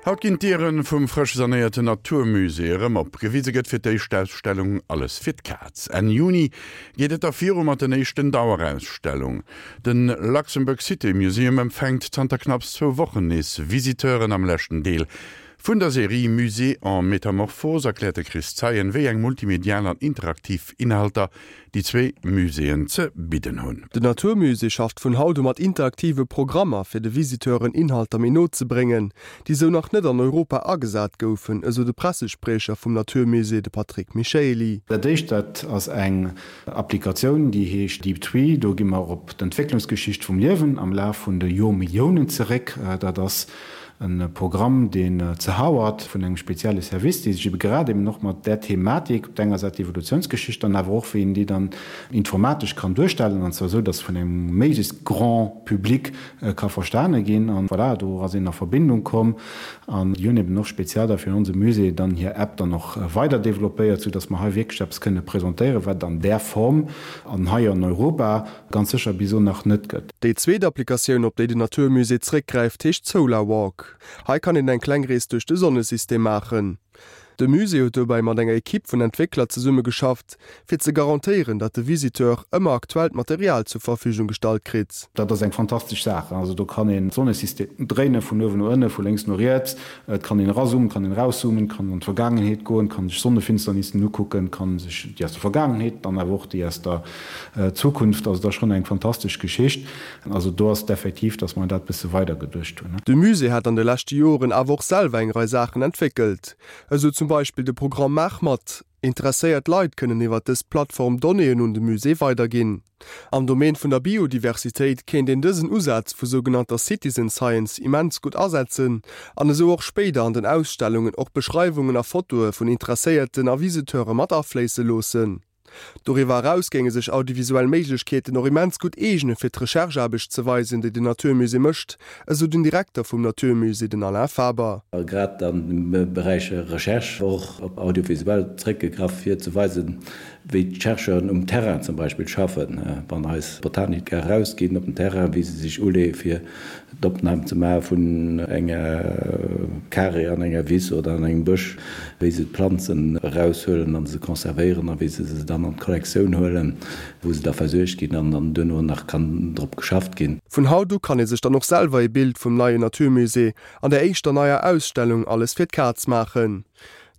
Haut ginn d'Diere vum frësch sanéierten 'natur musée' erëm op. Gewise gëtt fir d'éischt d'Ausstellung Alles fir d'Kaz. Enn Juni geet et da viru mat den éischten Dauerausstellung. De Luxembourg City Museum empfänkt zanter knapps zwou Wochen nees Visiteuren. Am leschten Deel vun der Serie Musée en métamorphose erkläert de Chris Zeien, wéi eng multimedial an interaktiv Inhalter déi zwee Muséeën ze bidden hunn. Den 'natur musée' schafft vun haut u mat interaktive Programmer, fir de Visiteuren Inhalter méi no ze bréngen, déi sou nach net an Europa agesat goufen, esou de Pressespriecher vum 'natur musée', de Patrick Michaely. Dat éischt, dat ass eng Applikatioun, déi heescht Deep Tree. Do gi mer op d'Entwécklungsgeschicht vum Liewen am Laf vun de Joermilliounen zeréck. Dat ass E Programm, deen ze Howard vun engem spezielle Service, dee sech ebe grad eben och mat där Thematik, op der enger Säit d'Evolutiounsgeschicht, dann awer och wéi een déi dann informatesch kann duerstellen, an zwar esou, datt se vun engem méiglechst grand Public ka verstane ginn. An voilà, do ass een a Verbindung komm an déi hunn eben och speziell da fir onse Musée dann hir App dann och weider développéiert, soudatt mer hei wierklech eppes kënne presentéieren, wat et an där Form an hei an Europa Ganz sécher bis elo nach net gëtt. Déi zweet Applikatioun, op déi den 'natur musée' zréckgräift, heescht Solar Walk. Hei kann een eng kleng Rees duerch de Sonnesystem maachen. De Musée huet dobäi mat enger Ekipp vun Entwéckler zesummegeschafft, fir ze garantéieren, datt de Visiteur ëmmer aktuellt Material zur Verfügung gestallt kritt. Dat ass eng fantastesch Saach. Also do kann een d'Sonnesystem dréinen, vun uewen no ënne, vu lénks no riets. Et kann een erazoomen, et kann een erauszoomen, et kann an d'Vergaangenheet goen, et kann sech Sonnefinsternissen ukucken, et kann sech déi aus der Vergaangenheet, dann awer och déi aus der Zukunft, also dat ass schonn eng fantastesch Geschicht. Also do ass et effektiv, datt mer dat bësse weider geduecht hunn. De Musée hat an de leschte Joren awer och selwer eng Rei Saachen entwéckelt. Esou zum Beispill de Programm Maach mat! Interesséiert Leit kënnen iwwer dës Plattform Donnéeën un de Musée weiderginn. Am Domaine vun der Biodiversitéit kéint een dësen Usaz vu sougenannter Citizen Science immens gutt asetzen an esou och spéider an den Ausstellungen och Beschreiwungen a Fotoe vun Interesséierten a Visiteure mat afléisse loossen. Doriwwer eraus géinge sech audiovisuell Méiglechkeeten och immens gutt eegene fir d'Recherche-Aarbecht ze weisen, déi den 'natur musée' mécht, esou den Direkter vum 'natur musée', den Alain Faber. Grad am Beräich Recherche och op audiovisuell zeréckgegraff fir ze weisen, wéi d'Chercheuren um Terrain zum Beispill schaffen, wann eis Botaniker erausginn op den Terrain, wéi se sech uleeë fir d'Opnam ze maache vun enger Karee an enger Wiss oder an engem Bësch, wéi se d'Planzen eraushuelen a se conservéieren a wéi se se dann an d'Kollektioun huelen, wou se da versuergt ginn an dann duerno nach kann drop geschafft ginn. Vun haut u kann ee sech dann och selwer ee Bild vum neien 'natur musée' an der éischter neier Ausstellung Alles fir d'Kaz maachen.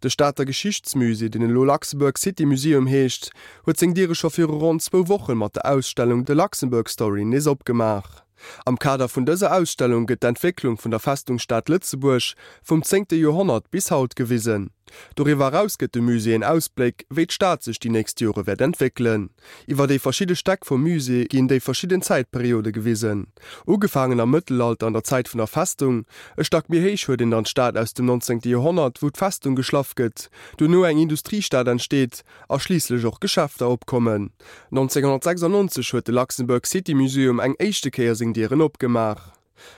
De Stater Geschichtsmusée, deen elo Luxembourg City Museum heescht, huet seng Diere scho viru ronn zwou Woche mat der Ausstellung The Luxembourg Story nees opgemaach. Am Kader vun dëser Ausstellung gëtt d'Entwécklung vun der Festungsstad Lëtzebuerg vum zéngte Joerhonnert bis haut gewisen. Doriwwer eraus gëtt de Musée en Ausbléck, wéi d'Stad sech déi nächst Jore wäert entwéckelen. Iwwer déi verschidde Stäck vum Musée ginn déi verschidden Zäitperiode gewisen. Ugefaangen am Mëttelalter an der Zäit vun der Festung. E Stack méi héich huet een dann d'Stad aus dem nonzéngte Joerhonnert, wou d'Festung geschlaff gëtt, duerno eng Industriestad entsteet a schliisslech och Geschäfter opkommen. 1996 huet de Luxembourg City Museum eng éischte Kéier seng Dieren opgemaach.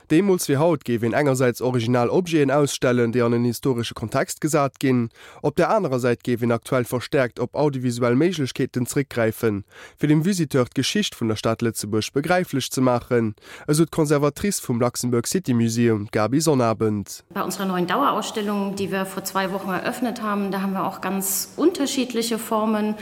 Deemools wéi haut géif een engersäits original Objeten ausstellen, déi an en historesche Kontext gesat ginn. Op där anerer Säit géif een aktuell verstäerkt op audiovisuell Méiglechkeeten zréckgräifen, fir dem Visiteur d'Geschicht vun der Stad Lëtzebuerg begräiflech ze maachen, esou d'Conservatrice vum Luxembourg City Museum, d'Gaby Sonnabend. Bei unserer neuen Dauerausstellung, die wir vor zwei Wochen eröffnet haben, da haben wir auch ganz unterschiedliche Formen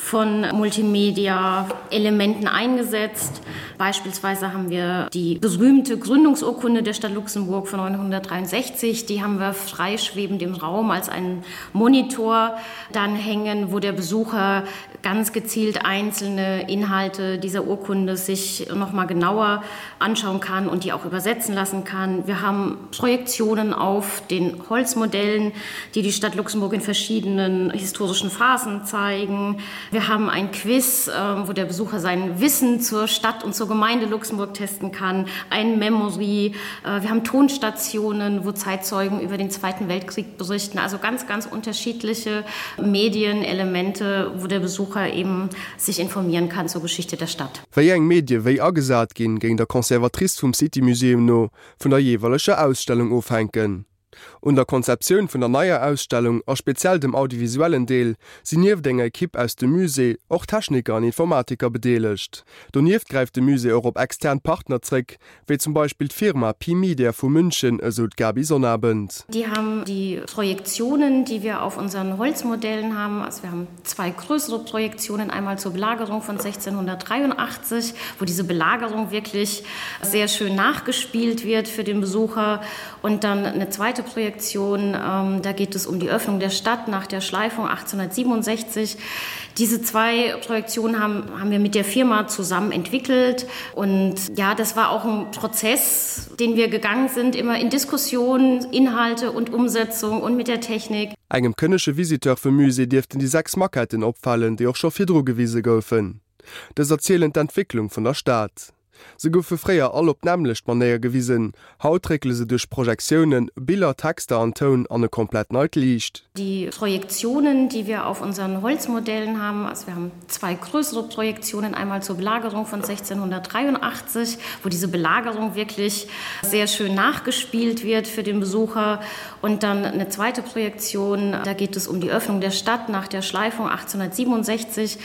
von Multimedia-Elementen eingesetzt. Beispielsweise haben wir die berühmte Gründungsurkunde der Stadt Luxemburg von 963, die haben wir freischwebend im Raum als einen Monitor dann hängen, wo der Besucher ganz gezielt einzelne Inhalte dieser Urkunde sich noch mal genauer anschauen kann und die auch übersetzen lassen kann. Wir haben Projektionen auf den Holzmodellen, die die Stadt Luxemburg in verschiedenen historischen Phasen zeigen. Wir haben ein Quiz, ähm, wo der Besucher sein Wissen zur Stadt und zur Gemeinde Luxemburg testen kann, ein Memory. Äh, wir haben Tonstationen, wo Zeitzeugen über den Zweiten Weltkrieg berichten. Also ganz, ganz unterschiedliche Medienelemente, wo der Besucher eben sich informieren kann zur Geschichte der Stadt. Wéi eng Medie wéi agesat ginn, géing der Conservatrice vum City Museum no vun der jeeweileger Ausstellung ofhänken. Un der Konzeptioun vun der neier Ausstellung a speziell dem audiovisuellen Deel sinn nieft enger Ekipp aus dem Musée och Techniker an Informatiker bedeelegt. Donieft gräift de Musée och op extern Partner zréck, wéi zum Beispill d'Firma Pi-Media vu München, esou d'Gaby Sonnabend. Die haben die Projektionen, die wir auf unseren Holzmodellen haben. Also wir haben zwei größere Projektionen, einmal zur Belagerung von 1683, wo diese Belagerung wirklich sehr schön nachgespielt wird für den Besucher und dann eine zweite Projektion, ähm, da geht es um die Öffnung der Stadt nach der Schleifung 1867. Diese zwei Projektionen haben, haben wir mit der Firma zusammen entwickelt und ja, das war auch ein Prozess, den wir gegangen sind, immer in Diskussionen, Inhalte und Umsetzung und mit der Technik. Engem kënnege Visiteur vum Musée dierften déi 6 Maquetten opfalen, déi och scho virdru gewise goufen. Dës erzielen d'Entwécklung vun der Stad. Se goufe fréier all op d'nämmlecht Manéier gewisen, haut réckele se duerch Projektiounen, Biller, Texter an Toun an e komplett neit Liicht. Die Projektionen, die wir auf unseren Holzmodellen haben, also wir haben zwei größere Projektionen, einmal zur Belagerung von 1683, wo diese Belagerung wirklich sehr schön nachgespielt wird für den Besucher und dann eine zweite Projektion, da geht es um die Öffnung der Stadt nach der Schleifung 1867.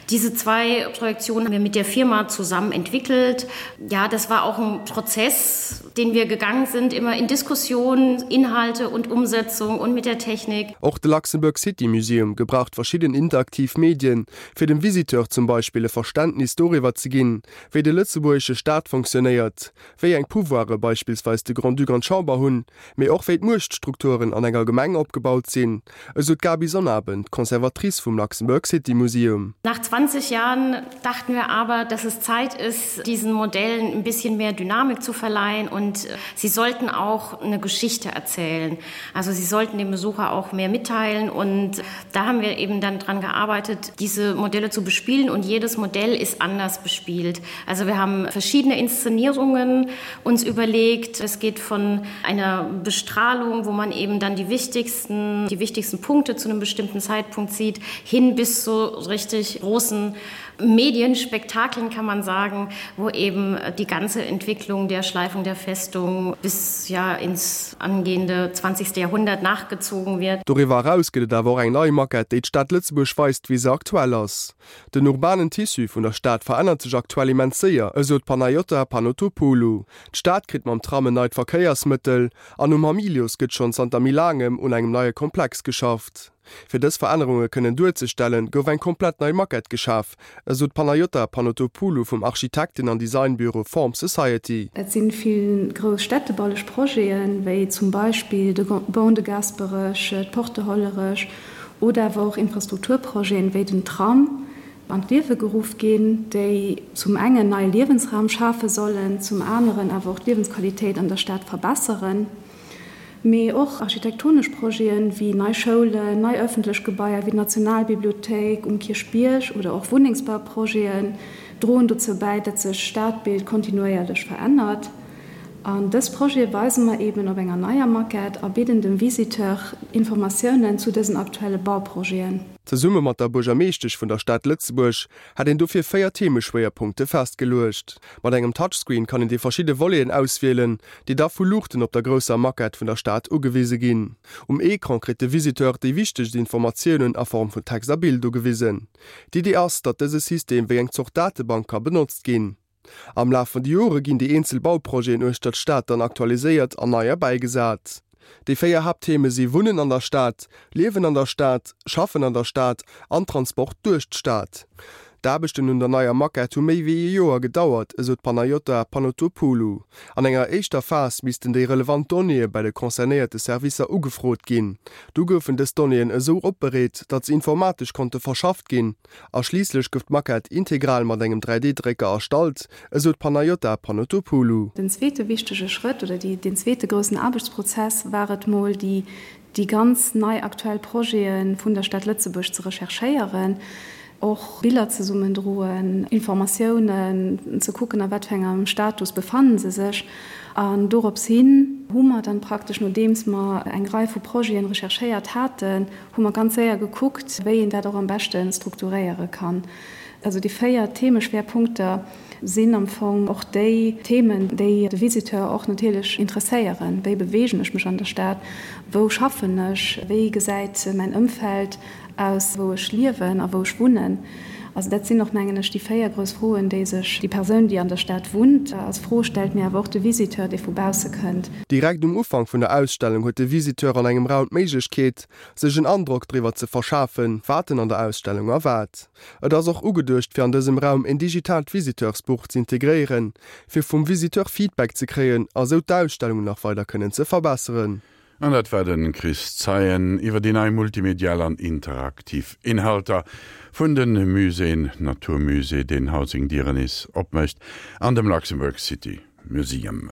Diese zwei Projektionen haben wir mit der Firma zusammen entwickelt. Ja, das war auch ein Prozess, den wir gegangen sind, immer in Diskussionen, Inhalte und Umsetzung und mit der Technik. Och de Luxembourg City Museum gebraucht verschidden interaktiv Medien, fir dem Visiteur zum Beispill e Verständnis doriwwer ze ginn, wéi de lëtzebuergesche Staat fonctionnéiert, wéi eng Pouvoire beispillsweis de Grand-Duc an d'Chamber hunn, mee och wéi d'Muechtstrukturen an enger Gemeng opgebaut sinn, esou d'Gaby Sonnabend, Conservatrice vum Luxembourg City Museum. Nach 20 Jahren dachten wir aber, dass es Zeit ist, diesen Modellen ein bisschen mehr Dynamik zu verleihen und sie sollten auch eine Geschichte erzählen. Also sie sollten dem Besucher auch mehr mitteilen und da haben wir eben dann dran gearbeitet, diese Modelle zu bespielen und jedes Modell ist anders bespielt. Also wir haben verschiedene Inszenierungen uns überlegt. Es geht von einer Bestrahlung, wo man eben dann die wichtigsten, die wichtigsten Punkte zu einem bestimmten Zeitpunkt sieht, hin bis zu richtig großen Medienspektakeln kann man sagen, wo eben die ganze Entwicklung der Schleifung der Festung bis ja ins angehende 20. Jahrhundert nachgezogen wird. Doriwwer eraus gëtt et awer och eng nei Maquette, déi d'Stad Lëtzebuerg weist, wéi se aktuell ass. Den urbanen Tissu vun der Stad verännert sech aktuell immens séier, esou d'Panayiota Panotopoulou. D'Stad kritt mam Tram en neit Verkéiersmëttel an um Hamilius gëtt schonn zanter méi laangem un engem neie Komplex geschafft. Fir dës Verännerunge kënnen duerzestellen, gouf eng komplett nei Maquette geschaf, esou d'Panayiota Panotopoulou vum Architekten an Designbüro Form Society. Et si vill grouss städtebaulech Projeten, wéi zum Beispill de Ban de Gaasperech, d'Porte Hollerech oder awer och Infrastrukturprojeten, wéi den Tram, an d'Liewe geruff ginn, déi zum engen neie Liewensraum schafe sollen, zum aneren awer och d'Liewensqualitéit an der Stad verbesseren. Mee och architektonesch Projeten, wéi nei Schoulen, nei ëffentlech Gebaier wéi d'Nationalbibliothéik um Kierchbierg oder och Wunnengsbauprojeten droen dozou bäi, datt sech d'Stadbild kontinuéierlech verännert. An dës Projete weise mer eben op enger neier Maquette a bidden dem Visiteur Informatiounen zu dësen aktuelle Bauprojeten. Zesumme mat der Buergermeeschtesch vun der Stad Lëtzebuerg hätt een dofir 4 Themeschwéierpunkte festgeluecht. Mat engem Touchscreen kann een déi verschidde Voleten auswielen, déi da vu Luuchten op der grousser Maquette vun der Stad ugewise ginn. Um Ecran kritt de Visiteur déi wichtegst Informatiounen a Form vun Text a Bild ugewisen. D'Idee ass, datt dëse System wéi eng Zort Datebank ka benotzt ginn. Am Laf vun de Jore ginn déi eenzel Bauprojeten uechter d'Stad dann aktualiséiert an nei erbäigesat. Déi 4 Haapttheme si Wunnen an der Stad, Liewen an der Stad, Schaffen an der Stad an Transport duerch d'Stad. D'Aarbechten un der neier Maquette hu méi wéi ee Joer gedauert, esou d'Panayiota Panotopoulou. An enger éischter Phas missten déi relevant Donnéeë bei de concernéierte Servicer ugefrot ginn. Du goufen dës Donnéeën esou opbereet, datt se informatesch konnte verschafft ginn. A schliisslech gouf d'Maquette integral mat engem 3D-Drécker erstallt, esou d'Panayiota Panotopoulou. Den zweete wichtege Schrëtt oder déi, deen zweete groussen Aarbechtsprozess war et mol, déi, déi ganz nei aktuell Projete vun der Stad Lëtzebuerg ze recherchéieren, och Biller zesummendroen, Informatiounen ze kucken, a wat fir engem Status befannen se sech. An dorops hin hu mer dann praktesch, nodeems mer eng Rei vu Projeten recherchéiert haten, hu mer ganz séier gekuckt, wéi een dat och am beschte strukturéiere kann. Also déi 4 Themeschwerpunkter sinn am Fong och déi Themen, déi de Visiteur och natierlech interesséieren, Wéi beweegen ech mech an der Stad? Wou schaffen ech? Wéi gesäit mäin Ëmfeld aus, wou ech liewen a wou ech wunnen? Also dat sinn och, mengen ech, déi 4 grouss Froen, déi sech déi Persoun, déi an der Stad wunnt, als Fro stellt, mee awer och de Visiteur, dee vu bausse kënnt. Direkt um Ufank vun der Ausstellung huet de Visiteur an engem Raum d'Méiglechkeet, sech en Androck driwwer ze verschafen, wat en an der Ausstellung erwaart. Et ass och ugeduecht, fir an dësem Raum en digitaalt Visiteursbuch z'integréieren, fir vum Visiteur Feedback ze kréien a sou d'Ausstellung nach weider kënnen ze verbesseren. An dat war de Chris Zeien iwwer déi nei multimedial an interaktiv Inhalter vun de Muséeën, Naturmusée, deen haut seng Dieren nees opmécht, an dem Luxembourg City Museum.